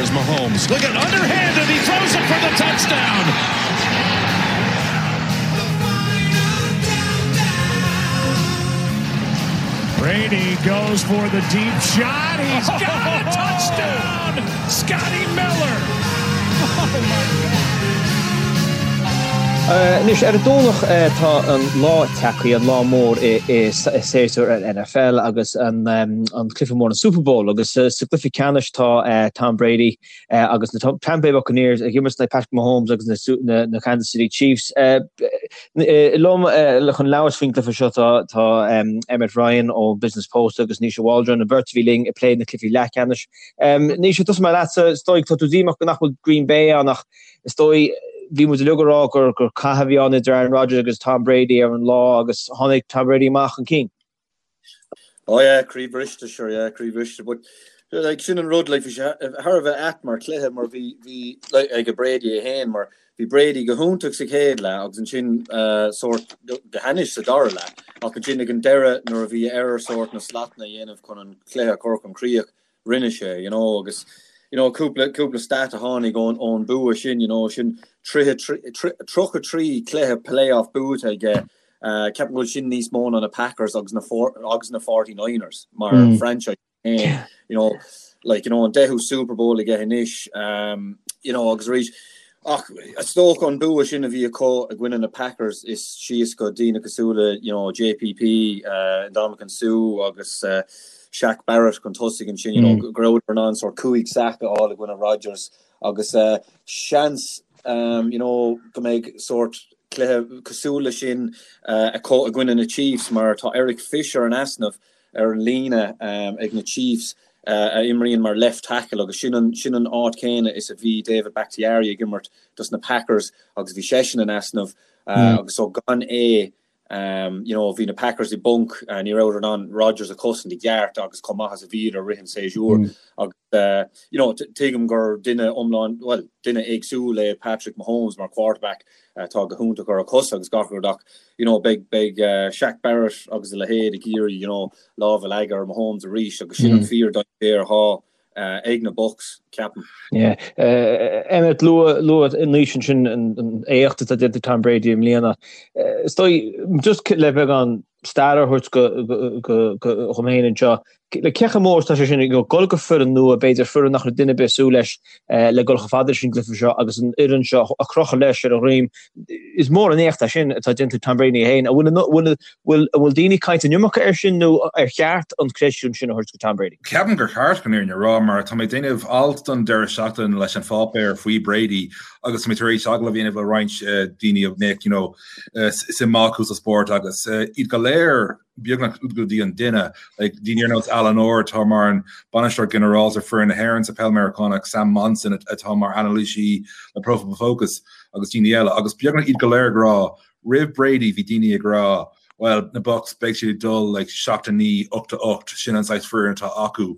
Here's Mahomes. Look at underhanded. He throws it for the touchdown. Brady goes for the deep shot. He's got a touchdown. Scotty Miller. Oh my God. Anois, ar an Domhnach tá an lá tagtha, an lá mór i séasúr an NFL agus an cluiche mór, an Super Bowl. Agus sa gcluiche ceannais tá Tom Brady agus na Tampa Bay Buccaneers ag imirt in aghaidh Patrick Mahomes agus na Kansas City Chiefs. Liom chun labhairt faoin gcluiche seo tá Emmet Ryan ón Business Post agus Naoise Waldron, an bheirt a bhí linn ag plé na cluichí leathcheannais. Naoise, tosóidh mé leatsa, is dóigh tá tú díomách nach bhfuil Green Bay ann ach is dóigh bhí muid uilig ag rá gur cath a bhí ann idir Aaron Rodgers agus Tom Brady ar an lá agus tháinig Tom Brady amach chun cinn. Oh yeah, croí briste, sure, yeah, croí briste, but like sin an rud, like bhí sé thar a bheith ait mar chluiche mar bhí, bhí, like ag Brady é féin mar bhí Brady go hiontach sa chéad leath agus ansin uh, sórt go hainnis sa dara leath ach ansin ag an deireadh nuair a bhí air sórt na slatanna a dhéanamh chun an cluiche a chur chun críoch rinne sé, you know, agus you know, cúpla, cúpla stat a tháinig ón, ón bua sin, you know, sin 33 cluiche playoff buaite aige, uh, ceapaim go bhfuil sin níos mó ná na Packers agus na, agus na 49ers mar mm. franchise féin, you know, like, you know, an deichiú Super Bowl aige anois, um, you know, agus arís, ach is dócha an bua sin a bhí acu i gcoinne na Packers is síos go daoine cosúil le, you know, JPP, uh, Ndamukong Suh agus uh, Shaq Barrett chun tosaigh ansin, you know, go rabhadar in ann sórt 5 sack a fháil i gcoinne Rodgers agus seans, you know, go mbeidh sórt cluiche cosúil leis sin acu i gcoinne na Chiefs mar tá Eric Fisher in easnamh ar an líne ag na Chiefs a imríonn mar left tackle agus sin an sin an áit chéanna is a bhí David Bakhtiari ag imirt dos na Packers agus bhí seisean in easnamh agus so gan é You know, bhí na Packers i bponc, ní rabhadar in ann Rodgers a chosaint i gceart agus chomh maith is a bhíodar i rith an séasúir. Agus, you know, tuigim gur duine iomlán, bhuel, duine éagsúil é Patrick Mahomes mar quarterback atá go hiontach ar a chosa agus gach rud ach, you know, beidh, beidh Shaq Barrett agus a leithéid ag iarraidh, you know, lámh a leagadh ar Mahomes arís agus sin an fíor-dainséar atá ag na Bucs, ceapaim. Yeah. Emmet, luaigh Naoise ansin an éacht atá déanta ag Tom Brady i mbliana. Is dóigh, just le beagán stair a thabhairt dhom féin anseo, le cé chomh mór is atá sé sin ag dul go foireann nua, b'fhéidir foireann nach raibh duine ar bith ag súil leis le dul chomh fada leis an gcluiche seo agus an fhoireann seo a chrochadh leis ar a dhroim. Is mór an éacht é sin atá déanta ag Tom Brady féin. An bhfuil Bhfuil, an bhfuil daoine ag caint an iomarca air sin nó ar cheart an creidiúint sin a thabhairt go Tom Brady? Ceapaim gur cheart chun an fhírinne a rá mar tá mé ag déanamh alt don deireadh seachtaine leis an pháipéar faoi Brady agus tá mé tar éis agallamh a dhéanamh le roinnt daoine a mbeadh you know suim acu sa spórt agus iad go léir beagnach go dtí an duine like daoine ar nós Alan Orr atá mar an bainisteoir ginearálta foireann na hÉireann sa peil Meiriceánach, Sam Monson atá mar anailísí le Pro Football Focus agus daoine eile agus beagnach iad go léir ag rá Roimh Brady bhí daoine ag rá bhuel na Bucs beidh siad ag dul like 7-9, 8-8, sin an saghas foireann atá acu.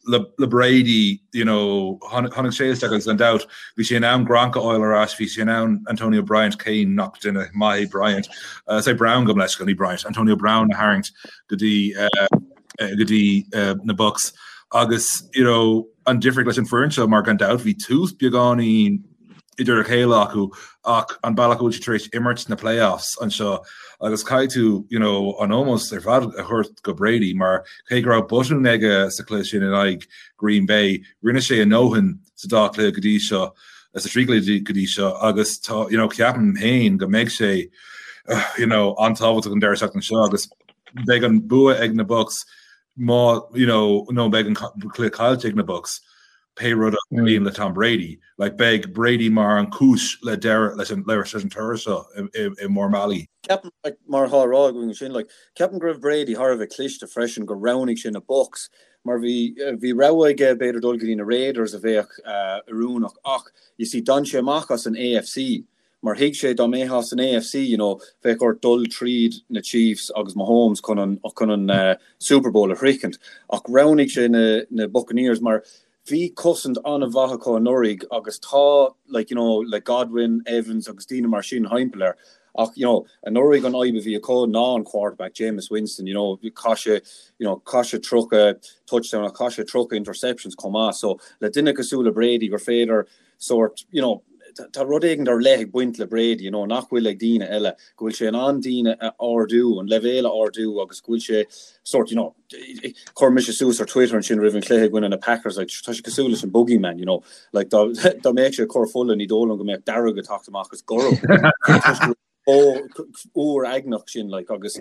Le, le Brady, you know, tháinig sé isteach agus gan dabht bhí sé in ann Gronk a fháil ar ais, bhí sé in ann Antonio Bryant, cé nach duine maith é Bryant, uh, say Brown gabh mo leithscéal, ní Bryant, Antonio Brown a tharraingt go dtí uh, go dtí uh, na Bucs agus you know, an difríocht leis an foireann seo mar gan dabht bhí tús beagáinín idir a chéile acu ach an bealach a bhfuil siad tar éis imirt sna playoffs anseo agus caithfidh tú you know, an ómós ar fad a thabhairt go Brady mar cé go raibh botún aige sa chluiche sin in aghaidh Green Bay, rinne sé a ndóthain sa dá chluiche go dtí seo sa trí chluiche go dtí seo agus tá you know, ceapaim féin go mbeidh sé you know, an-tábhachtach an deireadh seachtaine seo agus beidh an bua ag na Bucs má you know, nó beidh an cluiche caillte ag na Bucs. pé rud a tharlaíonn le Tom Brady. Like, beidh Brady mar an chúis le deireadh leis an leis an toradh seo i mórmbealaí. Ceapaim, like, mar atá á rá againn ansin, like, ceapaim go raibh Brady thar a bheith cliste freisin gur roghnaigh sé na Bucs mar bhí, bhí rogha aige b'fhéidir dul go dtí na Raiders a bheadh oiriúnach ach, you see, d'fhan sé amach as an AFC mar thuig sé dá mbeifeá san AFC, you know, bheadh ort dul tríd na Chiefs agus Mahomes chun an, chun an Super Bowl a shroichint. Ach roghnaigh sé na, na Buccaneers mar bhí cosaint an-mhaith acu anuraidh agus tá, like, you know, le Godwin, Evans agus daoine mar sin thimpeall air. Ach, you know, anuraidh an fhadhb a bhí acu ná an quarterback, Jameis Winston, you know, chaith sé, you know, chaith sé 30 touchdown ach chaith sé 30 interceptions chomh maith. So le duine cosúil le Brady gur féidir sórt, you know, tá rud éigin ar leith ag baint le Brady, you know, nach bhfuil ag daoine eile, go bhfuil sé in ann daoine a ardú, an leibhéal a ardú agus go bhfuil sé sórt, you know, chuir mise suas ar Twitter ansin roimh an chluiche i gcoinne na Packers, like, tá sé cosúil leis an Boogeyman, you know, like, dá, dá mbeadh sé ag cur fola ní dóigh liom go mbeadh dearg ag teacht amach is gorm. Chomh uaigneach sin, like, agus,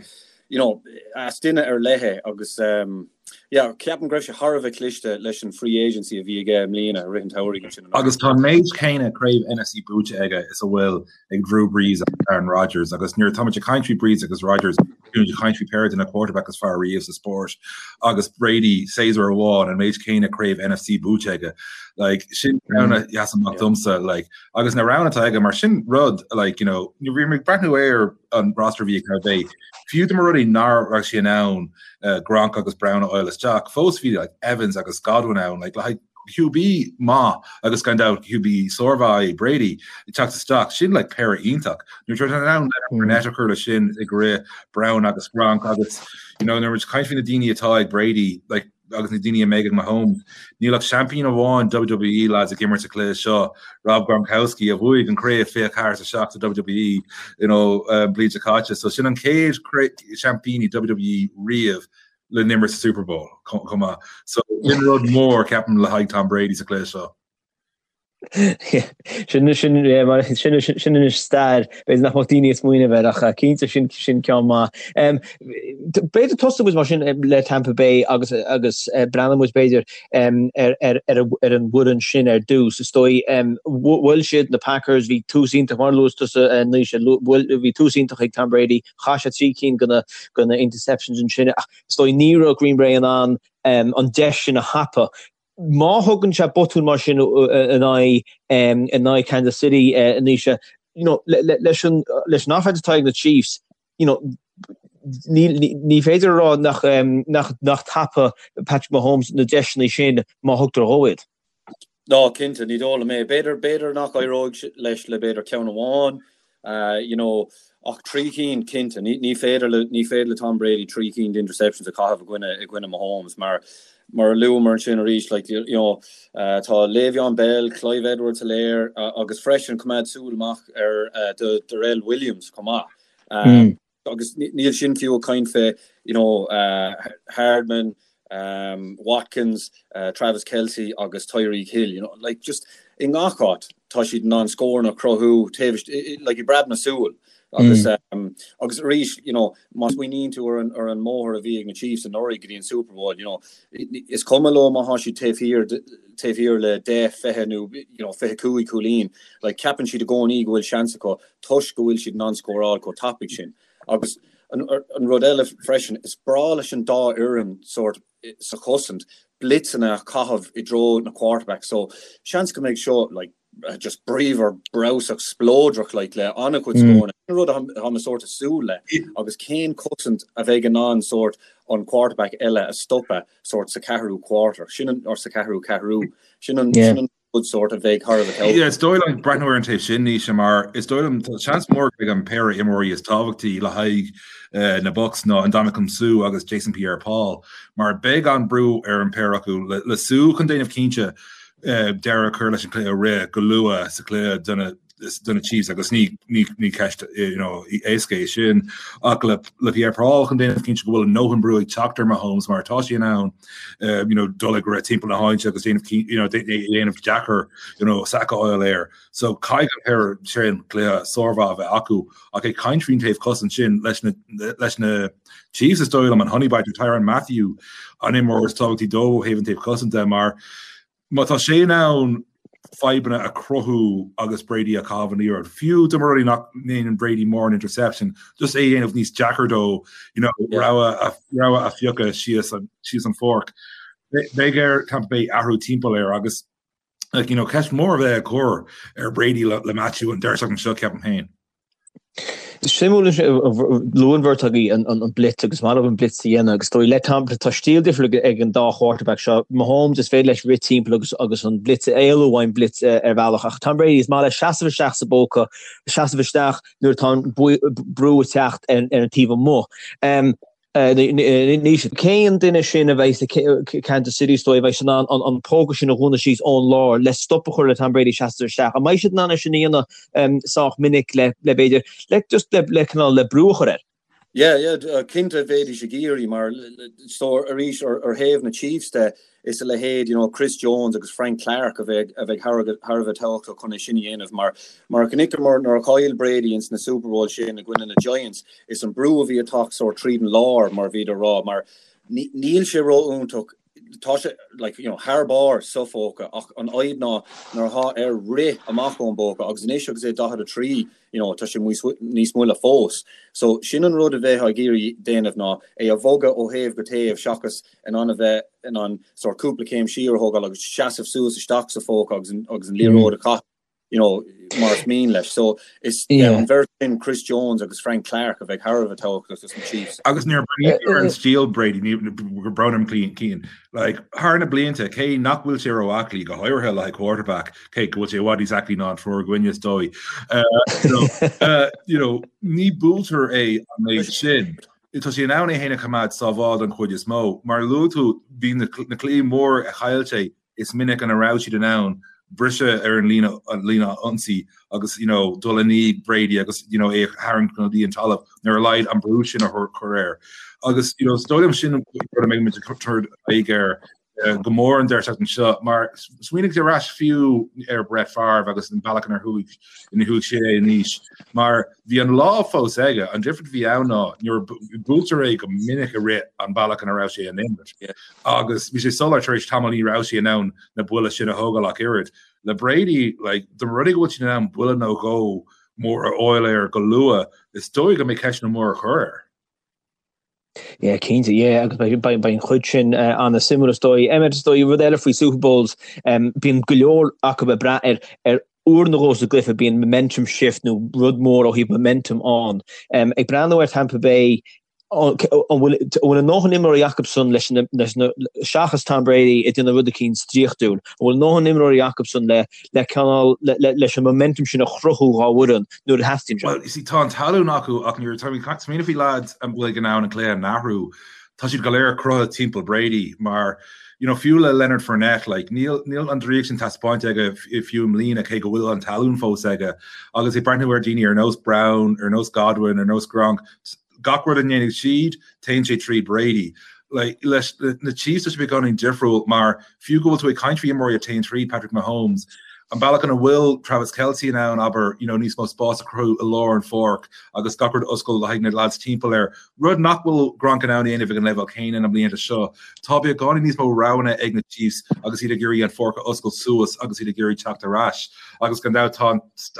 you know, is duine ar leith é agus, um, yeah, ceapaim go raibh sé thar a bheith cliste leis an free agency a bhí aige i mbliana i rith an tsamhraidh ansin. Agus tá an méid céanna craobh NFC buaite aige is a bhfuil ag Drew Brees agus Aaron Rodgers agus nuair atá muid ag caint faoi Brees agus Rodgers, bíonn muid ag caint faoi péire de na quarterback is fearr riamh sa spórt agus Brady séasúr amháin an méid céanna craobh NFC buaite aige. Like, sin ceann a sheas amach domsa like, agus na roghanna atá aige mar sin rud like, you know, nuair bhí mé ag breathnú ar an roster a bhí ag Tampa Bay, fiú dá mba rud é nach raibh sé in ann uh, Gronk agus Brown a fháil isteach, fós bhí like, Evans agus Godwin ann like, le haghaidh QB maith agus gan dabht QB sármhaith é Brady ag teacht isteach, sin like péire iontach. Nuair atá in ann Leonard Fournette a chur leis sin ag rith Brown agus Gronk agus you know nuair muid ag caint faoi na daoine atá ag Brady like agus na daoine a mbeidh ag Mahomes, níl ach seaimpín amháin WWE lads ag imirt sa chluiche seo, Rob Gronkowski a bhuaigh an craobh 24 7 sa WWE you know um, bliain seo caite. So sin an chéad seaimpín i WWE riamh le n-imirt sa Super Bowl chomh maith. So sin rud mór ceapaim le haghaidh Tom Brady sa chluiche seo. Sin sin sin sin anois stair b'fhéidir nach mbeadh daoine ag smaoineamh air ach cinnte sin sin ceann maith. B'fhéidir tosóidh muid mar sin le Tampa Bay agus agus breathnóidh muid b'fhéidir ar ar ar ar an bhfoireann sin ar dtús. Is dóigh bhuail siad na Packers, bhí tús iontach mar a luaigh tusa Naoise, bhí tús iontach ag Tom Brady, Chaith sé 3 cinn de na interceptions ansin ach is dóigh ní raibh Green Bay in ann an deis sin a thapú. Má thugann sé botún mar sin in aghaidh in aghaidh Kansas City Naoise, you know, leis an leis an offense atá ag na Chiefs, you know, ní ní féidir a rá nach nach nach dtapódh Patrick Mahomes na deiseanna sin má thugtar dhó iad. Ná, cinnte, ní dóigh liom é. B'fhéidir, b'fhéidir nach éireoidh leis le b'fhéidir ceann amháin, you know, ach 3 cinn, cinnte. Ní, ní féidir le, ní féidir le Tom Brady 3 cinn d'interceptions a chaitheamh i gcoinne, i gcoinne Mahomes mar, mar a luamar ansin arís, like, you know, tá Le'Veon Bell, Clyde Edwards-Helaire agus freisin coimeád súil amach ar do Darrel Williams chomh maith. Agus níl sin fiú ag caint fé, you know, Hardman, Watkins, Travis Kelce agus Tyreek Hill, you know, like just i ngach áit tá siad in ann scóranna a chruthú taobh like i bpreab na súl. Agus agus arís, you know, má smaoiníonn tú ar an ar an mbóthar a bhí ag na Chiefs anuraidh go dtí an Super Bowl, you know, is cuma leo má tá siad taobh thiar taobh thiar le 10, 20 nó you know 25 cúilín, like ceapann siad i gcónaí go bhfuil seans acu toisc go bhfuil siad in ann scóráil chomh tapaidh sin. Agus an rud eile freisin, is breá leis an dá fhoireann sórt sa chosaint blitzeanna a chaitheamh i dtreo na quarterback so seans go mbeidh seo like just bríomhar breabhsach spleodrach like le an-chuid scóranna. Sin rud atá mé sórt ag súil le agus cén cosaint a bheidh in ann sórt an quarterback eile a stopadh sórt sa ceathrú quarter, sin an or sa ceathrú ceathrú, sin an sin an rud sórt a bheidh thar a bheith tábhachtach. Yeah, is dóigh liom breathnú ar an taobh sin, Naoise, mar is dóigh liom tá seans mór go mbeidh an péire imreoirí is tábhachtaí le haghaidh na Bucs ná Ndamukong Suh agus Jason Pierre-Paul, mar beidh an brú ar an péire acu le Suh chun déanamh cinnte deireadh a chur leis an cluiche rith go luath sa chluiche do na do na Chiefs agus ní ní ceist you know éasca é sin ach le le Pierre-Paul chun déanamh cinnte go bhfuil a ndóthain brú ag teacht ar Mahomes mar tá sé in ann you know dul ag rith timpeall na háite agus déanamh you know déanamh deacair you know sack a fháil air. So caithfidh an péire sin cluiche sármhaith a bheith acu ach ag caint faoin taobh cosaint sin leis na leis na Chiefs is dóigh liom an Honey Badger Tyrann Mathieu an imreoir is tábhachtaí dóibh ó thaobh an taobh cosanta de mar Má tá sé in ann fadhbanna a chruthú agus Brady ag caitheamh an liathróid, fiú dá mba rud é nach ndéanann Brady mórán interception, just é a dhéanamh níos deacair dó, you know, rogha a rogha a phiocadh síos an síos an pháirc. Beidh ar Tampa Bay athrú timpeall air agus like, you know, ceist mhór a bheidh á cur ar Brady le le Mathieu an deireadh seachtaine seo ceapaim féin. Suimiúil luaigh an bheirt agaibh an blitz agus is maith leo an blitz a dhéanamh agus is dóigh le Tom tá stíl difriúil ag an dá quarterback seo. Mahomes is féidir leis rith timpeall agus agus an blitz a éalú ón blitz ar bhealach ach Tom Brady is maith leis seasamh isteach sa bpóca, seasamh isteach nuair atá an brú ag teacht ar an taobh amuigh. Naoise, cén duine sin a bheidh ag Kansas City is dóigh a bheidh in ann an póca sin a dhúnadh síos ón lár le stop a chur le Tom Brady seasamh isteach? An mbeidh siad in ann é sin a dhéanamh sách minic le b'fhéidir le just le le cineál le brú a chur air? Yeah, yeah, cinnte bheidís ag iarraidh mar so arís ar ar thaobh na Chiefs de is a leithéid you know Chris Jones agus Frank Clark a bheidh a bheidh thar thar a bheith tábhachtach chun é sin a dhéanamh mar mar a chonaiceamar nuair a chaill Brady ins na Super Bowl sin i gcoinne na Giants is an brú a bhí ag teacht sórt tríd an lár mar a bhíodar ag rá mar níl sé ró-iontach tá sé like you know thar barr sa phóca ach an fhadhb ná nuair atá air rith amach ón bpóca agus anois agus é 43 you know tá sé níos moille fós. So sin an rud a bheifeá ag iarraidh déanamh ná é a bhogadh ó thaobh go taobh seachas in ann a bheith in ann sórt cúpla céim siar a thógáil agus seasamh suas isteach sa phóca agus an agus an liathróid a chaitheamh you know mar is mian leis. So is yeah an bheirt sin Chris Jones agus Frank Clark a bheidh thar a bheith tábhachtach dos na Chiefs. Agus nuair a breathnaítear ar an stíl Brady ní gur brón orm Cian like thar na blianta cé nach bhfuil sé ró-aclaí go háirithe le haghaidh quarterback cé go bhfuil sé i bhfad níos aclaí ná an triúr againne is dóigh you know ní buailtear é an méid sin. Tá sé in ann é féin a choimeád sábháilte den chuid is mó. Mar a luaigh tú, bhí na cluichí mór a chaill sé, is minic ina raibh siad in ann briseadh ar an líne an líne ionsaí agus you know dul i ndiaidh Brady agus you know é a tharraingt go dtí an talamh nó ar a laghad an brú sin a chur air. Agus you know is dóigh liom sin rud a mbeidh muid ag tabhairt aghaidh air go mór an deireadh seachtaine seo, mar smaoinigh ar ais fiú ar Brett Favre agus an bealach inar chuaigh ina chuaigh sé in aois, mar bhí an lámh fós aige, an difear a bhí ann ná nuair buailtear é go minic i rith an bealach ina raibh sé in imirt agus bhí sé soiléir tar éis tamaill ní raibh sé in ann na buille sin a thógáil ach oiread. Le Brady, like, dá mba rud é go bhfuil siad in ann buille nó dhó mór a fháil air go luath, is dóigh go mbeidh ceisteanna móra a chur air. Yeah, cinnte, yeah, agus beidh beidh an chuid sin an-suimiúil is dóigh. Emmet, is dóigh, rud eile faoi Super Bowls, bíonn go leor acu ag brath ar ar uair nó dhó sa gcluiche, bíonn momentum shift nó rud mór ó thaobh momentum ann. Ag breathnú ar Tampa Bay, an bhfuil an bhfuil a ndóthain imreoirí acusan leis na leis na seachas Tom Brady ag déanamh rud eicínt draíochtúil, an bhfuil a ndóthain imreoirí acusan le le cineál leis an momentum sin a chruthú dhá bhfoireann nuair a theastaíonn sé. Bhuel, you see, tá an tallann acu ach nuair atá ag smaoineamh faoi lads a bhfuil in ann an cluiche a athrú, tá siad go léir cruthaithe timpeall Brady mar, you know, fiú le Leonard Fournette, like, níl, níl an draíocht sin taispeáinte aige fiú i mbliana cé go bhfuil an tallann fós aige. Agus ag breathnú ar daoine ar nós Brown, ar nós Godwin, ar nós Gronk, gach rud a ndéanfaidh siad, téann sé tríd Brady. Like, leis na Chiefs tá sé beagáinín difriúil mar fiú go bhfuil tú ag caint faoi imreoirí a téann tríd Patrick Mahomes, an bealach ina bhfuil Travis Kelce in ann, abair, you know, níos mó spás a chruthú i lár an pháirc agus gach rud a oscailt le haghaidh na lads timpeall air, rud nach bhfuil Gronk in ann a dhéanamh ag an leibhéal céanna na blianta seo. Tá beagáinín níos mó roghanna ag na Chiefs agus iad ag iarraidh an pháirc a oscailt suas agus iad ag iarraidh teacht ar ais. Agus gan dabht tá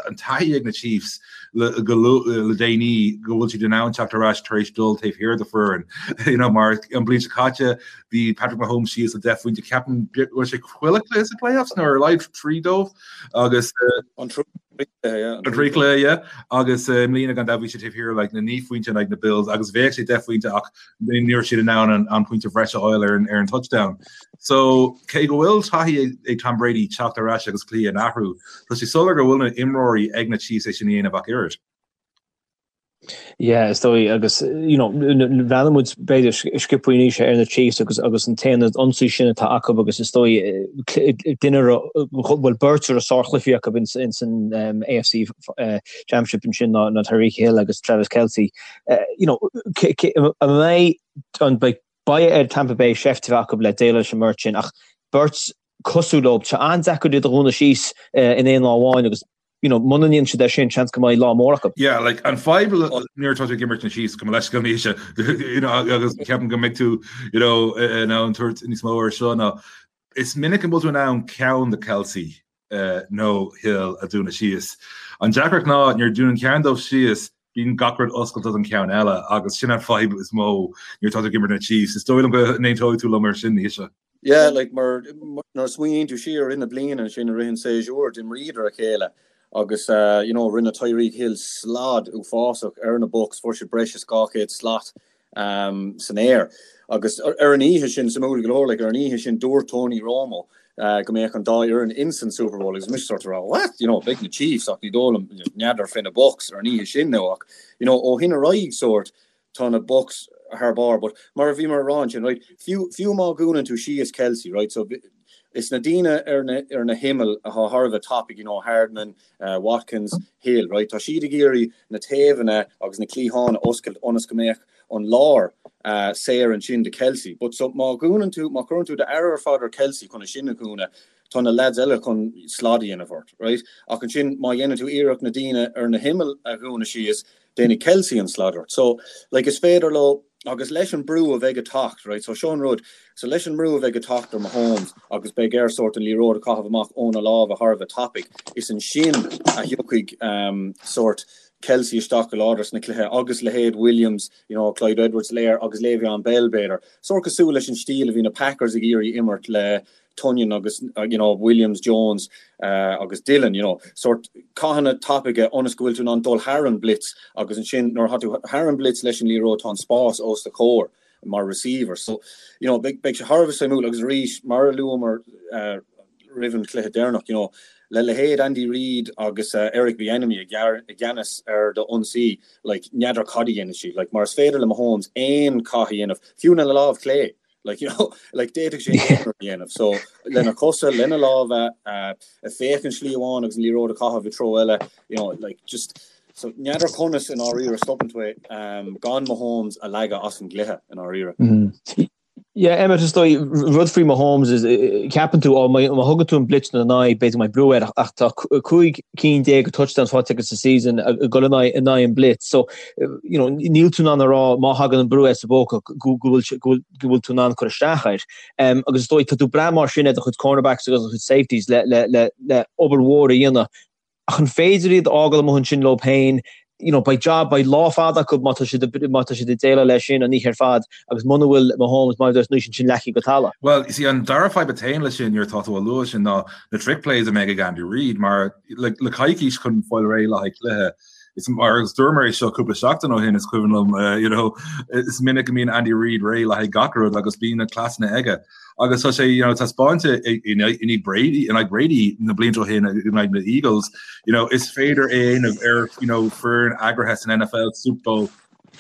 an taithí ag na Chiefs le le déanaí go bhfuil siad in ann teacht ar ais tar éis dul taobh thiar de foireann. You know, mar an bhliain seo caite bhí Patrick Mahomes síos le 10 phointe ceapaim go raibh sé chuile chluiche sa playoffs nó ar a laghad trí dóibh agus an trí chluiche yeah agus i mbliana gan dabht bhí sé taobh thiar like na 9 phointe in aghaidh na Bills agus bheadh sé 10 phointe ach ní raibh siad in ann an pointe bhreise a fháil ar an touchdown. So cé go bhfuil taithí ag Tom Brady teacht ar ais agus cluiche a athrú, tá sé soiléir go bhfuil na imreoirí ag na Chiefs é sin a dhéanamh ach oiread. Yeah, is dóigh agus you know bhreathnaigh muid b'fhéidir sciobtha anois ar na Chiefs agus agus an t-aonad ionsaí sin atá acu agus is dóigh duine bhfuil beirt ar a sárchluichí acu ins ins an um, AFC uh, Championship ansin ná ná Tyreek Hill agus Travis Kelce. You know, an mbeidh an beidh beidh ar Tampa Bay seift a bheith acu le déileáil leis an mbeirt sin ach beirt cosúil leo, tá sé an-deacair iad a dhúnadh síos in aon lá amháin agus you know, muna ndéanann siad é sin, seans go mbeidh lá mór acu. Yeah, like, an fadhb nuair atá tú ag imirt na Chiefs go leis go mbíonn you know, agus ceapaim go mbeidh tú you know, in ann tabhairt níos mó ar seo ná is minic an bhfuil tú in ann ceann de Kelce nó Hill a dúnadh síos. An deacracht ná nuair a dúnann ceann dóibh síos, bíonn gach rud oscailte don cheann eile agus sin an fadhb is mó nuair atá tú ag imirt na Chiefs. Is dóigh liom go n-aontóidh tú liom ar sin, Naoise. Yeah, like mar nuair a smaoiníonn tú siar i rith na bliana ansin i rith an séasúr, d'imríodar a chéile. Agus you know rinne Tyreek Hill slad uafásach ar na Bucs, fuair siad breis is 200 slat san aer. Agus ar an oíche sin, suimiúil go leor, like ar an oíche sin dúirt Tony Romo go mbeadh an dá fhoireann ins an Super Bowl agus mise sort of rá what? You know, beidh na Chiefs ach ní dóigh liom n'fheadar fé na Bucs ar an oíche sin now ach you know ó shin ar aghaidh sort tá na Bucs thar barr but mar a bhíomar a rá ansin right fiú fiú má dhúnann tú síos Kelce right so is na daoine ar na ar na himill atá thar a bheith tapaidh you know Hardman Watkins, Hill, right, tá siad ag iarraidh na taobhanna agus na cliatháin a oscailt ionas go mbeadh an lár saor ansin do Kelce. But so má dhúnann tú, má chuireann tú d'aire ar fad ar Kelce chun é sin a dhúnadh, tá na lads eile chun slad a dhéanamh ort, right? Ach ansin má dhéanann tú iarracht na daoine ar na himill a dhúnadh síos, déanfaidh Kelce an slad ort. So, like, is féidir leo, agus leis an brú a bheidh ag teacht, right, so seo an rud, so leis an mbrú a bheidh ag teacht ar Mahomes agus beidh air sórt an liathróid a chaitheamh amach óna lámha thar a bheith tapaidh, is ansin a thiocfaidh um, sórt Kelce isteach go láidir sna cluiche agus leithéid Williams, you know, Clyde Edwards-Helaire agus Le'Veon Bell b'fhéidir. Sórt cosúil leis an stíl a bhí na Packers ag iarraidh imirt le Tonyan agus you know Williams, Jones agus Dillon, you know, sórt cathanna tapaidh ionas go bhfuil tú in ann dul thar an blitz agus ansin nuair atá tú thar an blitz leis an liathróid tá an spás os do chomhair mar receiver. So, you know, beidh beidh sé thar a bheith suimiúil agus arís mar a luamar uh, roimh an chluiche deireanach, you know, le leithéid Andy Reid agus uh, Eric Bieniemy i gceannas ar do ionsaí, like, n'fheadar cad a dhéanfaidh siad, like, mar is féidir le Mahomes aon chath a dhéanamh, fiú lena lámh chlé. Like, you know, like d'fhéadfadh sé aon rud a dhéanamh. So, lena chosa, lena lámha, uh, ag féachaint slí amháin agus an liathróid a chaitheamh i treo eile, you know, like just, so n'fheadar conas i ndáiríre stopann tú é, um, gan Mahomes a leagadh as an gcluiche i ndáiríre. Mm. Yeah, Emmet, is dóigh, rud faoi Mahomes is, ceapann tú, ó, má thugann tú an blitz ina aghaidh, b'fhéidir go mbeidh brú air, ach tá 15 cinn de touchdowns faighte aige sa season ag dul in aghaidh in aghaidh an blitz. So, you know, níl tú in ann a rá má thagann an brú air sa bpóca go bhfuil go bhfuil tú in ann cur isteach air. Um, agus is dóigh tá tú ag brath mar sin ar do chuid cornerbacks agus do chuid safeties le, le, le, le obair mhór a dhéanamh. Ach an féidir iad a fhágáil amuigh ansin leo féin, you know, beidh job, beidh lá fada acu má tá siad, má tá siad ag déileáil leis sin an oíche ar fad agus muna bhfuil Mahomes mar a dúirt anois ansin leagtha go talamh. Well, you see, an dara fadhb a théann leis sin nuair atá tú á lua sin ná na trick plays a mbeidh ag Andy Reid mar le, le coicís chun fáil réidh le haghaidh cluiche Is mar agus dúramar é seo cúpla seachtain ó shin is cuimhin liom uh, you know, is minic go mbíonn Andy Reid réidh le haghaidh gach rud agus bíonn na cleasanna aige. Agus tá sé you know, taispeánta in aghaidh Brady in aghaidh Brady na blianta ó shin in aghaidh na Eagles, you know, is féidir é a dhéanamh ar you know, foireann eagraithe san NFL Super Bowl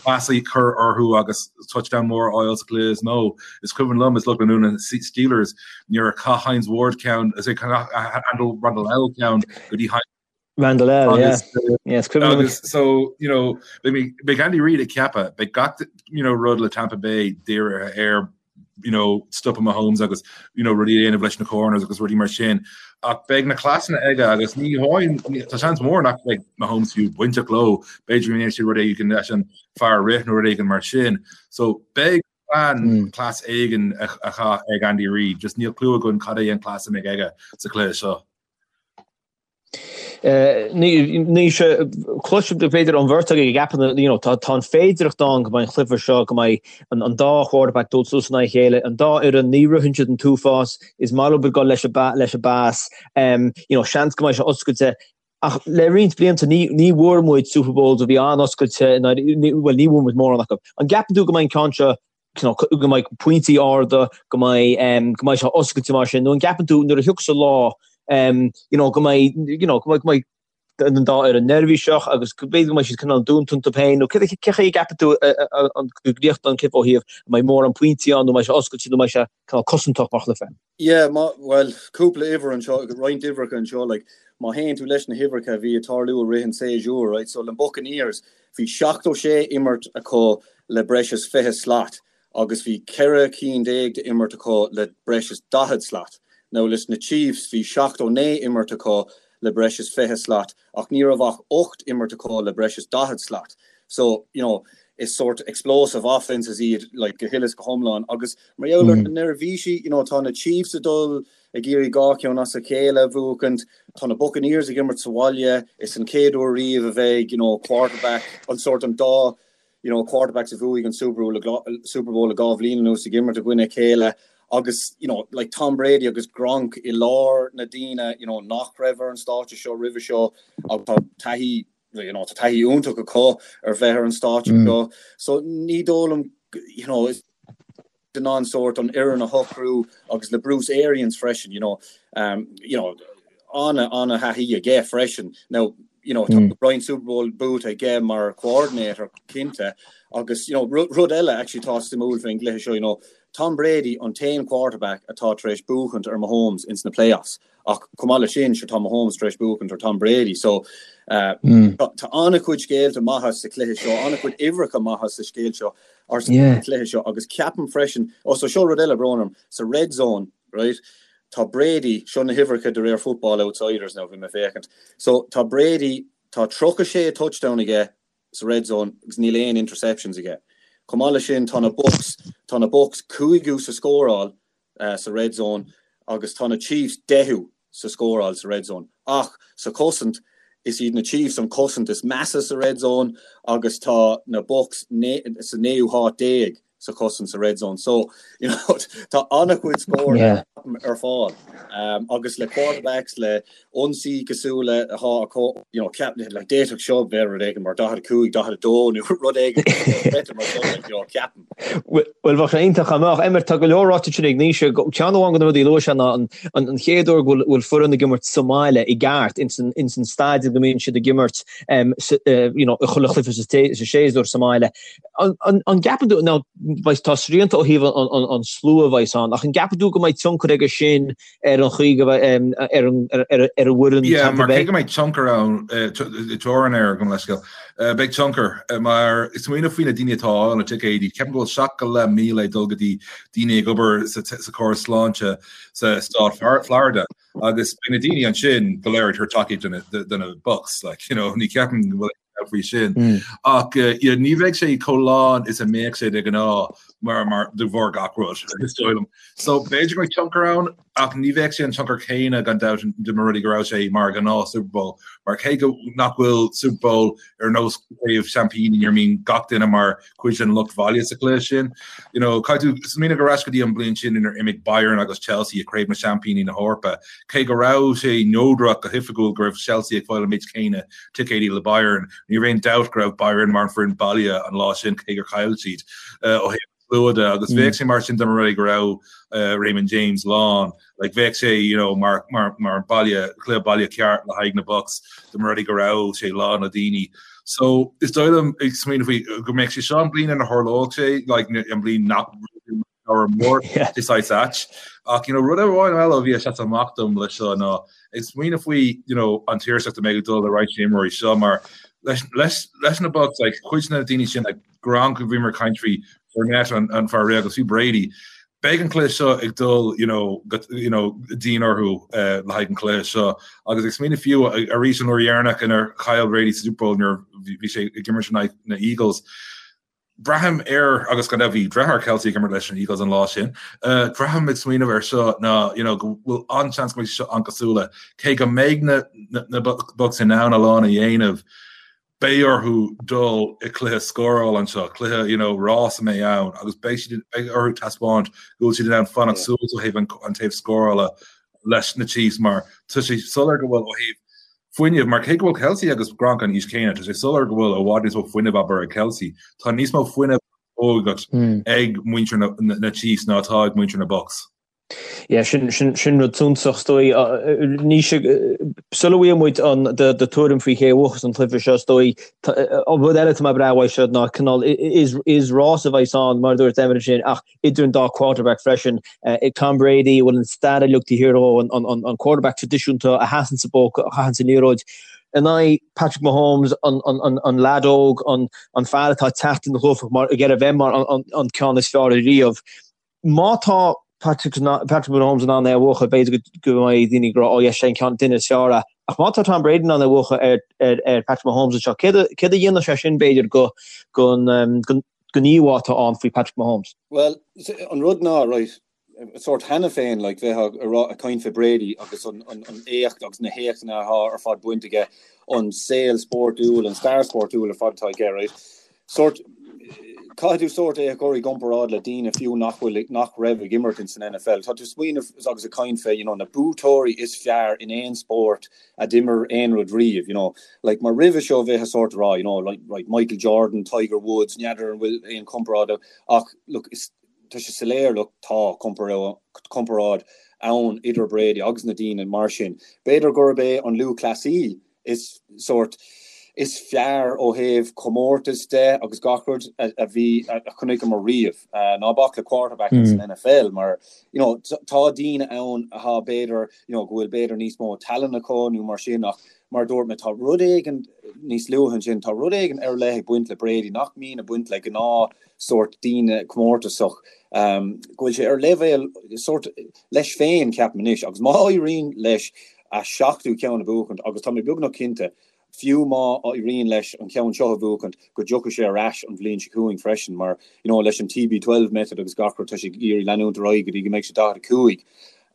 cleas a chur orthu agus touchdown mór a fháil sa chluiche is mó. Is cuimhin liom is lucht leanúna na Steelers nuair a chaith Hines Ward ceann, is é Randall L ceann go dtí Hines Randle El, yeah. Yes, agus so you know beidh Andy Reid ag ceapadh beidh gach you know rud le Tampa Bay dírithe ar you know stopadh Mahomes agus you know rudaí a dhéanamh leis na corners agus rudaí mar sin ach beidh na cleasanna aige agus ní hamháin tá seans mór nach mbeidh Mahomes fiú bainteach leo b'fhéidir go ndéanfaidh sé rud éigin leis an fear rith nó rud éigin mar sin so beidh plean cleas éigin a chaith ag Andy Reid just níl clue againn cad é an cleas a mbeidh aige sa chluiche seo. Ní sé cloisim b'fhéidir an bheirt agaibh ag ceapadh you know tá tá an féidireacht ann go mbeidh an cluiche seo go mbeidh an an dá quarterback dul suas in aghaidh a chéile, an dá fhoireann ní ritheann siad an t-uafás, is maith leo dul leis an leis an bpas, you know seans go mbeidh sé oscailte. Ach le roinnt blianta ní ní bhfuair muid Super Bowls a bhí an-oscailte bhuel ní bhfuair muid mórán acu. An gceapann tú go mbeidh an ceann seo go mbeidh pointí arda, go mbeidh go mbeidh sé oscailte mar sin, nó an gceapann tú nuair a thiocfas an lá you know go mbeidh you know go mbeidh go mbeidh an dá fhoireann neirbhíseach agus go b'fhéidir go mbeidh siad cineál dúnta iontu féin nó cé chaoi a gceapann tú an go gcríochnóidh an cluiche ó thaobh an mbeidh mórán pointí ann nó an mbeidh sé oscailte nó an mbeidh sé cineál cosantach mar chluiche? Yeah, má, bhuel, cúpla uimhir anseo, roinnt uimhreacha anseo, like, má théann tú leis na huimhreacha a bhí ag tarlú i rith an séasúr, right, so le Buccaneers, Bhí 76 imirt acu le breis is 20 slat agus bhí 14 cinn d'imirt acu le breis is 40 slat. Now leis na Chiefs bhí 79 imirt acu le breis is 20 slat ach ní raibh ach 8 imirt acu le breis is 40 slat. So, you know, is sort explosive offences iad like go huile is go hiomlán agus mar gheall ar na neirbhísí, you know, tá na Chiefs ag dul ag iarraidh 2 cheann as a chéile a bhuachaint. Tá na Buccaneers ag imirt sa bhaile. Is an chéad uair riamh a bheidh, you know, quarterback, an sórt an dá, you know, quarterbacks a bhuaigh an Super Bowl, Super Bowl le 2 bhliain anuas ag imirt i gcoinne a chéile. Agus, you know, like Tom Brady agus Gronk i lár na daoine, you know, nach raibh ar an stáitse seo roimhe seo agus tá taithí, you know, tá taithí iontach acu ar bheith ar an stáitse seo. So ní dóigh liom, you know, is in ann sórt an fhoireann a shocrú agus le Bruce Arians freisin, you know, um, you know, ana ana thaithí aige freisin. Now, you know, tá roinnt Super Bowl buaite aige mar coordinator cinnte agus you know, rud eile actually tá suimiúil faoin gcluiche seo, you know, Tom Brady an t-aon quarterback atá tar éis buachaint ar Mahomes ins na playoffs. Ach chomh maith leis sin, sure tá Mahomes tar éis buachaint ar Tom Brady. So uh, mm. tá an-chuid scéalta maithe sa chluiche seo, an-chuid uimhreacha maithe sa scéal seo ar sa yeah. chluiche seo agus ceapaim freisin, oh, so seo rud eile brón orm, sa red zone, right? Tá Brady, seo na huimhreacha de réir Football Outsiders now bhí mé féachaint. So tá Brady, tá 36 touchdown aige sa red zone agus níl aon interceptions aige. Chomh maith leis sin tá na Bucs, tá na Bucs cúigiú sa scóráil sa red zone agus tá na Chiefs deichiú sa scóráil sa red zone. Ach sa chosaint, is iad na Chiefs an chosaint is measa sa red zone agus tá na Bucs sa naoú háit déag sa chosaint sa red zone. So, you know, tá an-chuid scór yeah. ar fáil. Um, agus le quarterbacks le ionsaí cosúil le atá acu, you know, ceap like d'fhéadfadh seo bheith rud éigin mar 45, 42 nó rud éigin mar sin, like, you know, ceapaim. Bhuel, bheadh sé iontach dá mbeadh. Emmet, tá go leor ráite ansin ag Naoise. Ceann amháin de na rudaí a luaigh sé ná an chéad uair go bhfuil foireann ag imirt sa mbaile i gceart, ins an staidiam go mbíonn siad ag imirt you know, i chuile chluiche sa séasúr sa mbaile. An gceapann tú, now, tá srianta ó thaobh an slua a bheas ann, ach an gceapann tú go mbeidh tionchar aige sin ar an chaoi go mbeidh, ar an bhfoireann Yeah, mar cé go mbeidh tionchar ann, teorainn air, gabh mo leithscéal, beidh tionchar, mar is smaoineamh faoi na daoine atá ag fáil na ticéidí, ceapaim go bhfuil 7,500 ag dul go dtí daoine ag obair sa chóras sláinte sa stát Florida, agus beidh na daoine ansin go léir ag tabhairt tacaíocht do na Bucs, like, you know, ní ceapaim go bhfuil faoi sin. Ach ní bheidh sé chomh lán is a mbeadh sé de ghnáth mar mar de bharr gach rud, is dóigh liom. So b'fhéidir go mbeidh tionchar ann ach ní bheadh sé an tionchar céanna gan dabht dá mba rud é go raibh sé mar ghnáth Super Bowl. Mar cé go nach bhfuil Super Bowl ar nós craobh seaimpíní ina mbíonn gach duine mar cuid den lucht bhaile sa chluiche sin. You know, caithfidh tú smaoineamh ar ais go dtí an bliain sin inar imigh Bayern agus Chelsea i Craobh na Seaimpíní na hEorpa. Cé go raibh sé neodrach go hoifigiúil go raibh Chelsea ag fáil an méid céanna ticéidí le Bayern, ní raibh aon dabht go raibh Bayern mar an foireann baile an lá sin cé gur chaill siad ó thaobh slua de agus bheadh sé mar sin dá mba rud é go raibh Raymond James lán. Like bheadh sé you know mar mar mar baile cluiche baile ceart le haghaidh na Bucs dá mba rud é go raibh sé lán le daoine. So is dóigh liom ag smaoineamh faoi go mbeadh sé seo an bliain ina tharlódh sé like an bliain nach leabhar mór is saghas ait. Ach you know rud amháin eile a bhí ag seasamh amach dom leis seo ná ag smaoineamh faoi you know an tuirseacht a mbeidh ag dul le roinnt imreoirí seo mar leis leis leis na Bucs like cuid de na daoine sin like Gronk bhíomar ag caint faoi Fournette an an fear rith agus faoi Brady. Beidh an cluiche seo ag dul you know go you know dian orthu uh, le haghaidh an cluiche seo agus ag smaoineamh fiú arís an uair dheireanach inar chaill Brady sa Super Bowl nuair bhí sé ag imirt in aghaidh na Eagles. Braithim air agus gan dabht bhí deartháir Kelce ag imirt leis an Eagles an lá sin. Uh, braithim ag smaoineamh air seo ná you know, go bhfuil an-seans go mbeidh sé seo an-cosúil cé go mbeidh na, na, na Bucs in ann a lán a dhéanamh beidh orthu dul i cluiche scórála anseo, cluiche you know, rás a mbeidh ann agus beidh siad beidh orthu taispeáint go bhfuil siad in ann fanacht suas ó thaobh an, an taobh scórála leis na Chiefs mar tá sé soiléir go bhfuil ó thaobh fuinnimh mar cé go bhfuil Kelce agus Gronk an aois céanna, tá sé soiléir go bhfuil i bhfad níos mó fuinnimh abair ag Kelce. Tá níos mó fuinnimh ógacht ag muintir na, na, na Chiefs ná atá ag muintir na Bucs. Yeah, sin, sin, sin rud suntasach is dóigh. Naoise, sula bhfaighidh muid an, do, do tuairim faoi cé a bhuafas an cluiche seo, is dóigh, an rud eile atá mé ag brath uaidh seo ná cineál, is, is rás a bheas ann, mar a dúirt Emmet ansin, ach idir an dá quarterback freisin. Tom Brady, a bhfuil an stair uilig taobh thiar dhó, an, an, an quarterback traidisiúnta a sheasann sa bpocket, a chaitheann an liathróid, in aghaidh Patrick Mahomes, an, an, an, an leaid óg, an, an fear atá ag teacht ina ghlúfach mar, ag iarraidh a bheith mar an, an, an ceann is fearr ariamh. Má tá Patrick Mahomes in ann é a bhuachan, b'fhéidir go mbeidh daoine ag rá, oh yes, sé an ceann duine is fearr é. Ach má tá Tom Brady in ann é a bhuachan ar Patrick Mahomes anseo, céard a dhéanfadh sé sin, b'fhéidir, don íomhá atá ann faoi Patrick Mahomes? Bhuel, an rud ná, right, sórt cheana féin, like, bheith ag rá, ag caint fé Brady agus an éacht agus na héachtanna atá ar fad bainte aige, an saol spórtúil, an stair spórtúil ar fad atá aige, right? Sórt. Caithfidh tú sórt é a chur i gcomparáid le daoine fiú nach bhfuil, nach raibh ag imirt ins an NFL. Tá tú ag smaoineamh agus ag caint fé, you know, na buaiteoirí is fearr in aon spórt a d'imir aon rud riamh, you know. Like, mar roimhe seo bheifeá sórt ag rá, you know, like, right, Michael Jordan, Tiger Woods, n'fheadar an bhfuil aon comparáid ach, look, is, tá sé soiléir, look, tá comparáid ann idir Brady agus na daoine mar sin. B'fhéidir gurb é an lúthchleasaí is sórt is fearr ó thaobh comórtas de agus gach rud a bhí a chonaiceamar riamh. Ná bac le quarterback ins an NFL mar you know tá daoine ann atá b'fhéidir you know go bhfuil b'fhéidir níos mó tallann acu nó mar sin ach mar a dúirt mé tá rud éigin níos luaithe ansin tá rud éigin ar leith ag baint le Brady nach mbíonn ag baint le gnáth sórt daoine comórtasach go bhfuil sé ar leibhéal sórt leis féin ceapaim anois agus má éiríonn leis a seachtú ceann a bhuachaint agus tá mé beagnach cinnte, fiú má éiríonn leis an cheann seo a bhuachaint, go dtiocfaidh sé ar ais an bhliain seo chugainn freisin mar, you know, leis an TB12 method agus gach rud, tá sé ag iarraidh leanúint ar aghaidh go dtí go mbeidh sé 45.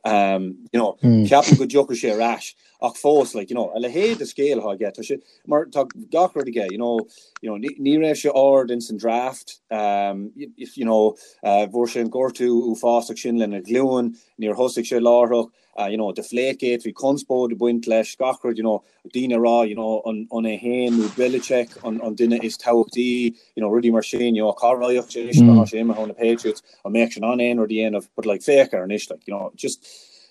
Um, you know, ceapaim go dtiocfaidh sé ar ais ach fós, like, you know, a leithéid de scéal atá aige, tá sé, mar tá gach rud aige, you know, you know, ní, ní raibh sé ard ins an draft, um, you know, uh, fuair sé an gortú uafásach sin lena ghlúin, níor thosaigh sé láithreach, you know, Deflategate, bhí conspóid ag baint leis, gach rud, you know, daoine ag rá, you know, an an é féin nó Belichick an an duine is tábhachtaí, you know, rudaí mar sin, you know, cá raghadh sé anois má tá sé imithe ó na Patriots, an mbeadh sé in ann aon rud a dhéanamh, but like féach air anois, like, you know, just,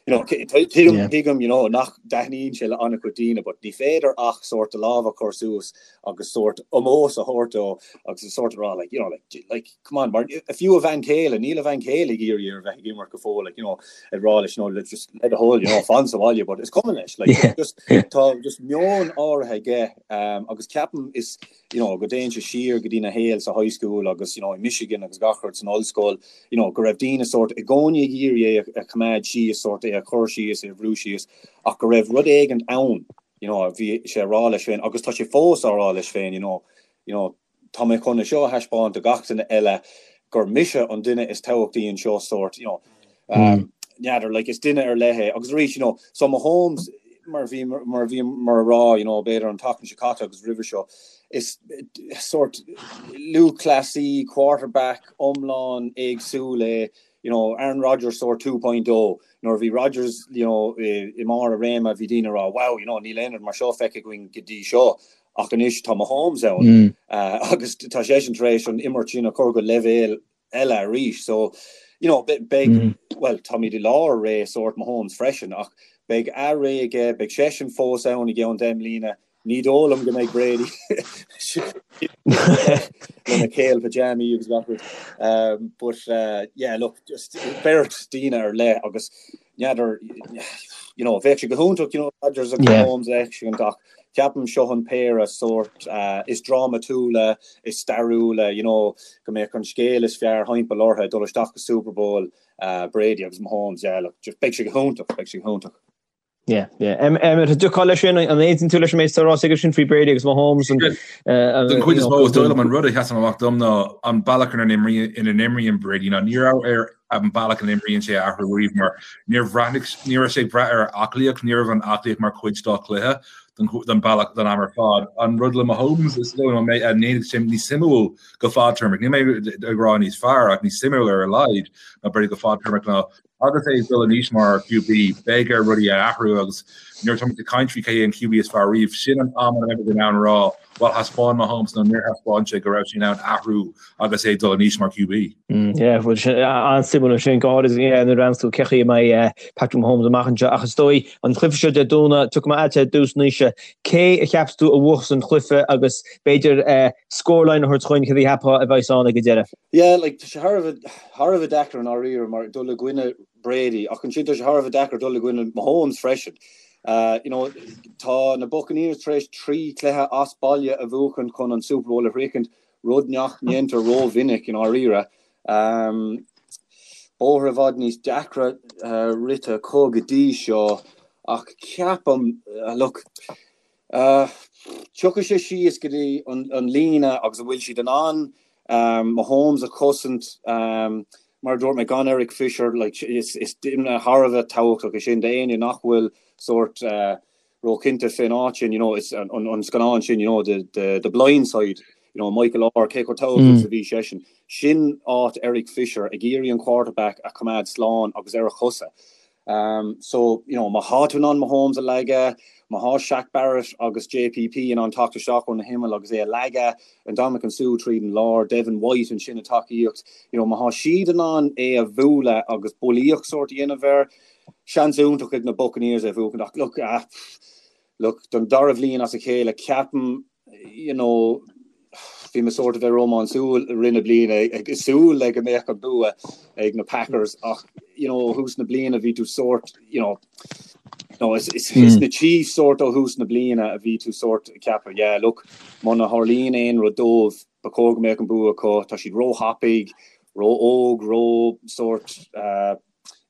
you know, tuigim, tuigim, you know, nach dtaitníonn sé le an-chuid daoine, but ní féidir ach sórt do lámh a chur suas agus sórt ómós a thabhairt dó agus sórt a rá, like, you know, like, like, come on, mar fiú a bhean chéile, níl a bhean chéile ag iarraidh air a bheith ag imirt go fóill, like, you know, ag rá leis, you know, let's just le do thoil, you know, fan sa bhaile, but is cuma leis, like, yeah. just, tá just meon áirithe aige, um, agus ceapaim is, you know, go dtéann sé siar go dtína shaol sa high school agus, you know, i Michigan agus gach rud san ollscoil, you know, go raibh daoine sórt i gcónaí ag iarraidh é a choimeád síos, sórt é a chur síos, é a bhrú síos, ach go raibh rud éigin ann, you know, bhí sé ag rá leis féin, agus tá sé fós á rá leis féin, you know, you know, tá mé chun é seo a thaispeáint do gach duine eile gur mise an duine is tábhachtaí anseo sórt, you know, n'fheadar, like, is duine ar leith é. Agus arís, you know, so Mahomes, mar bhí, mar bhí, mar a rá, you know, b'fhéidir an tseachtain seo caite agus roimhe seo, is sórt lúthchleasaí, quarterback iomlán éagsúil é, you know, Aaron Rodgers sórt 2.0, nuair a bhí Rodgers, you know, i mbarr a réime, bhí daoine ag rá, wow, you know, níl aon rud mar seo feicthe againn go dtí seo. Ach anois tá Mahomes ann agus tá seisean tar éis an imirt sin a chur go leibhéal eile arís. So, you know, beidh, bhuel, táimid i lár ré sórt Mahomes freisin ach beidh a ré aige, beidh seisean fós ann i gceann 10 mbliana. Ní dóigh liom go mbeidh Brady lena kale pyjamaí agus gach rud. But, yeah, look, just beirt daoine ar leith agus n'fheadar, you know, bheadh sé go hiontach, you know, Rodgers agus Mahomes a fheiscint ach ceapaim seo an péire sórt is drámatúla, is stairiúla, you know, go mbeadh an scéal is fearr thimpeall orthu ag dul isteach go Super Bowl, Brady agus Mahomes, yeah, look, just beidh sé go hiontach, beidh sé go hiontach. Yeah, yeah. Emmet, an dtiocfá leis sin, an aontaíonn tú leis an méid atá ráite aige sin faoi Brady agus Mahomes? Den chuid is mó, is dóigh liom an rud a sheasann amach dom ná an bealach ina n-imríonn Brady ná ní raibh air an bealach ina n-imríonn sé a athrú riamh mar níor bhreathnaigh, ní raibh sé ag brath ar aclaíocht, ní raibh an aclaíocht mar chuid dá chluiche don bealach don am ar fad. An rud le Mahomes is dóigh liom a ndéanfaidh sé níos suimiúil go fadtéarmach, níl mé ag rá níos fearr ach níos suimiúil ar a laghad ná Brady go fadtéarmach ná Agus é ag dul in aois mar QB, beidh air rudaí a athrú agus nuair atá muid ag caint faoi cé hé an QB is fearr riamh, sin an am a mbeimid in ann a rá, bhuel, thaispeáin Mahomes nó níor thaispeáin sé go raibh sé in ann athrú agus é ag dul in aois mar QB. Yeah, bhuel, sin an-suimiúil ansin, go háirid nuair a bhreathnaíonn tú cé chaoi a mbeidh Patrick Mahomes amach anseo. Ach is dóigh, an cluiche seo Dé Domhnaigh, tiocfaidh mé agatsa ar dtús Naoise, cé a cheapas tú a bhuafas an cluiche agus b'fhéidir scoreline a thabhairt chugainn céard a cheapfá a bheas ann ag an deireadh? Yeah, like, tá sé thar a bheith, thar a bheith deacair i ndáiríre mar dul i gcoinne Brady ach ansin tá sé thar a bheith deacair dul i gcoinne Mahomes freisin. Uh, you know, tá na Buccaneers tar éis 3 cluiche as baile a bhuachan chun an Super Bowl a shroichint, rud nach ndéantar rómhinic i ndáiríre. Um, bóthar i bhfad níos deacra uh, rite acu go dtí seo ach ceapaim, uh, look, Tiocfaidh sé síos go dtí an líne agus an bhfuil siad in ann Mahomes a chosaint, mar a dúirt mé, gan Eric Fisher, like, is duine thar a bheith tábhachtach é sin d'éinne nach bhfuil sórt róchinnte fén áit sin, you know, is an scannán sin, you know, the, the, the blind side. You know, Michael Oher, cé chomh tábhachtach is a bhí seisean. Sin áit Eric Fisher ag iarraidh an quarterback a choimeád slán agus ar a chosa. Um, so, you know, má thá tú in ann Mahomes a leagadh, má thá Shaq Barrett agus JPP in ann teacht isteach ó na himill agus é a leagadh, Ndamukong Suh tríd an lár, Devin White ansin ag tacaíocht, you know, má thá siad in ann é a bhualadh agus bulaíocht sórt a dhéanamh air, seans iontach ag na Buccaneers é a bhuachan. Ach look, ah, look, don dara bhliain as a chéile, ceapaim, you know, bhí mé sórt a bheith rómánsúil i rith na bliana ag súil le go mbeadh an bua ag na Packers ach you know, ó thús na bliana bhí tú sórt you know, no, is, is, mm. is na Chiefs sórt ó thús na bliana a bhí tú sórt ag ceapadh yeah, look, muna tharlaíonn aon rud dóibh ba chóir go mbeadh an bua acu tá siad ró-thapaidh ró-óg ró sórt uh,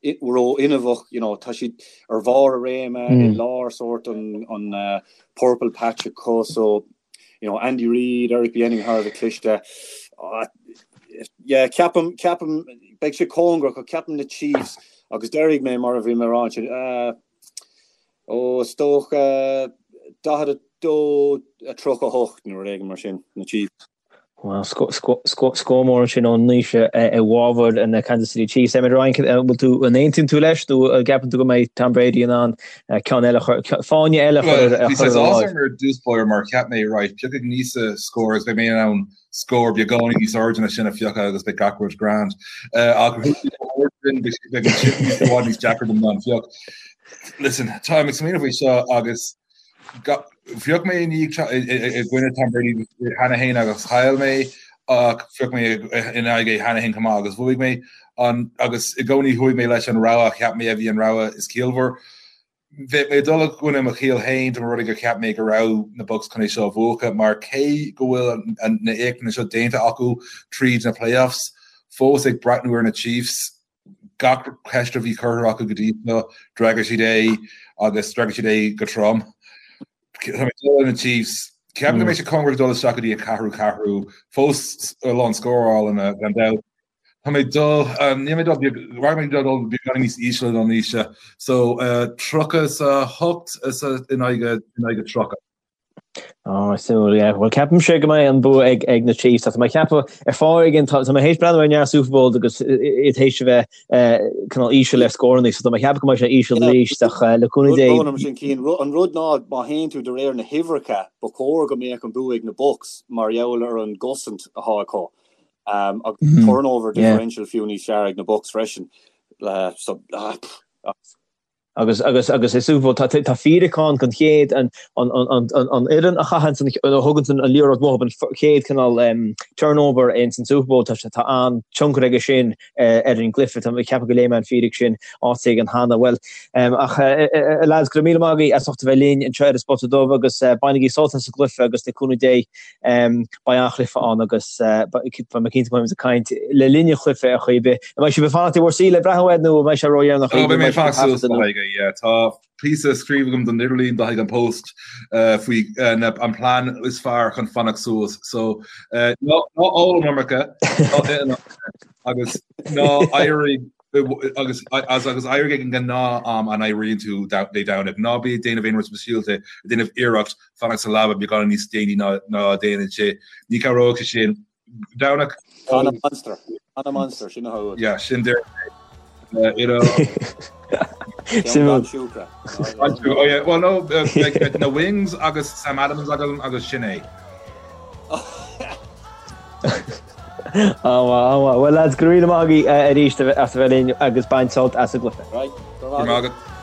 ró-fhuinneamhach, you know, tá siad ar bharr a réime mm. i lár sórt an, an uh, purple patch acu, so, you know, Andy Reid, Eric Bieniemy thar a bheith cliste. Uh, yeah, ceapaim, ceapaim, beidh sé cóngarach, ach ceapaim na Chiefs, agus déarfaidh mé mar a bhí mé ag rá ansin, uh, ó, is dócha 42 38 nó rud éigin mar sin, na Chiefs. Bhuel, scór mór ansin ó Naoise i bhfabhar na Kansas City Chiefs. Emmet Ryan, bhfuil tú, an aontaíonn tú leis nó an gceapann tú go mbeidh Tom Brady in ann ceann eile a chur, fáinne eile a chur ar a láimh? Bhí saghas áthas orm ar dtús báire mar cheap mé, right, piocfaidh Naoise scór agus beidh mé in ann scór beagáinín níos airde ná sin a phiocadh agus beidh gach rud grand. Ach beidh an sin i bhfad níos deacra dom ná an phioc. Listen, táim ag smaoineamh faoi seo agus Phioc mé i gcoinne Tom Brady cheana féin agus chaill mé ach phioc mé in aghaidh é cheana féin chomh maith agus bhuaigh mé agus i gcónaí chuaigh mé leis an rogha a cheap mé a bhí an rogha is ciallmhar. Bheadh mé ag dul i gcoinne mo chiall féin dá mba rud é gur cheap mé go raibh na Bucs chun é seo a bhuachan mar cé go bhfuil na éachtanna seo déanta acu tríd na playoffs, fós ag breathnú ar na Chiefs, Gach ceist a bhí curtha acu go dtí seo, d'fhreagair siad é agus d'fhreagair siad é go trom. Tá mé ag dul le na Chiefs. Ceapaim go mbeidh sé cóngarach dul isteach go dtí an ceathrú ceathrú, fós a lán scórálanna gan dabht. Tá mé ag dul, níl mé ag dul, rachaidh mé ag dul beagáinín níos ísle ná Naoise. So, 38 in aghaidh 30. Ó, suimiúil, yeah. Bhuel, ceapaimse go mbeidh an bua ag, ag na Chiefs. Tá mé ag ceapadh ar fáth éigin, tá, tá mé théis breathnú ar neart Super Bowls agus iad théis a bheith cineál íseal ar scóranna, so tá mé ag ceapadh go mbeidh sé íseal arís, ach le cúnamh Dé. Rud sin Cian, an rud ná má théann tú de réir na huimhreacha, ba chóir go mbeadh an bua ag na Bucs mar gheall ar an gcosaint atá acu. Um, agus turnover differential fiú níos fearr ag na Bucs freisin. Uh, so, uh, pff, Agus, agus, agus i Super Bowl, tá, tá fíric ann don chéad, an, an, an, an, an, an fhoireann a chaitheann an, a thugann an liathróid uathu, an chéad cineál um, turnover ins an Super Bowl, tá, tá an-tionchar aige sin uh, ar an gcluiche. Tá mé ag ceapadh go léigh mé an fíric sin áit éigin cheana. Bhuel, um, ach uh, uh, lads, go raibh míle maith agaibh as ucht a bheith linn anseo ar an Spota Dubh agus uh, bainigí sult as an gcluiche agus le cúnamh Dé um, Beidh an-chluiche ann agus beidh mé cinnte go mbeidh muid ag caint le linn an chluiche ar chaoi ar bith. An mbeidh sibh ag fanacht i bhur suí le breathnú air nó an mbeidh sé ródheireanach? Ó, beidh mé ag fanacht suas le haghaidh é, yeah. Tá píosa scríofa agam don idirlíon do haghaidh an Post faoi an plean is fearr chun fanacht suas. So, ná ól an iomarca, ná ith an iomarca agus ná éirigh agus agus éirigh ag an ngnáth-am a n-éiríonn tú Dé Domhnaigh. Ná bí ag déanamh aon rud speisialta, ag déanamh iarracht fanacht sa leaba beagán níos déanaí ná ná a déanann sé. Ní cabhróidh sé sin. Domhnach. Canna Monster. Canna Monster, sin atá uait. Yeah, sin deir you know. Sin siúcra. Oh yeah, well no, like, na wings agus Sam Adams agam agus sin é. An-mhaith, an-mhaith. Bhuel lads, go raibh míle maith agaibh arís as a bheith linn agus bain sult as an gcluiche. Right, go raibh maith agat.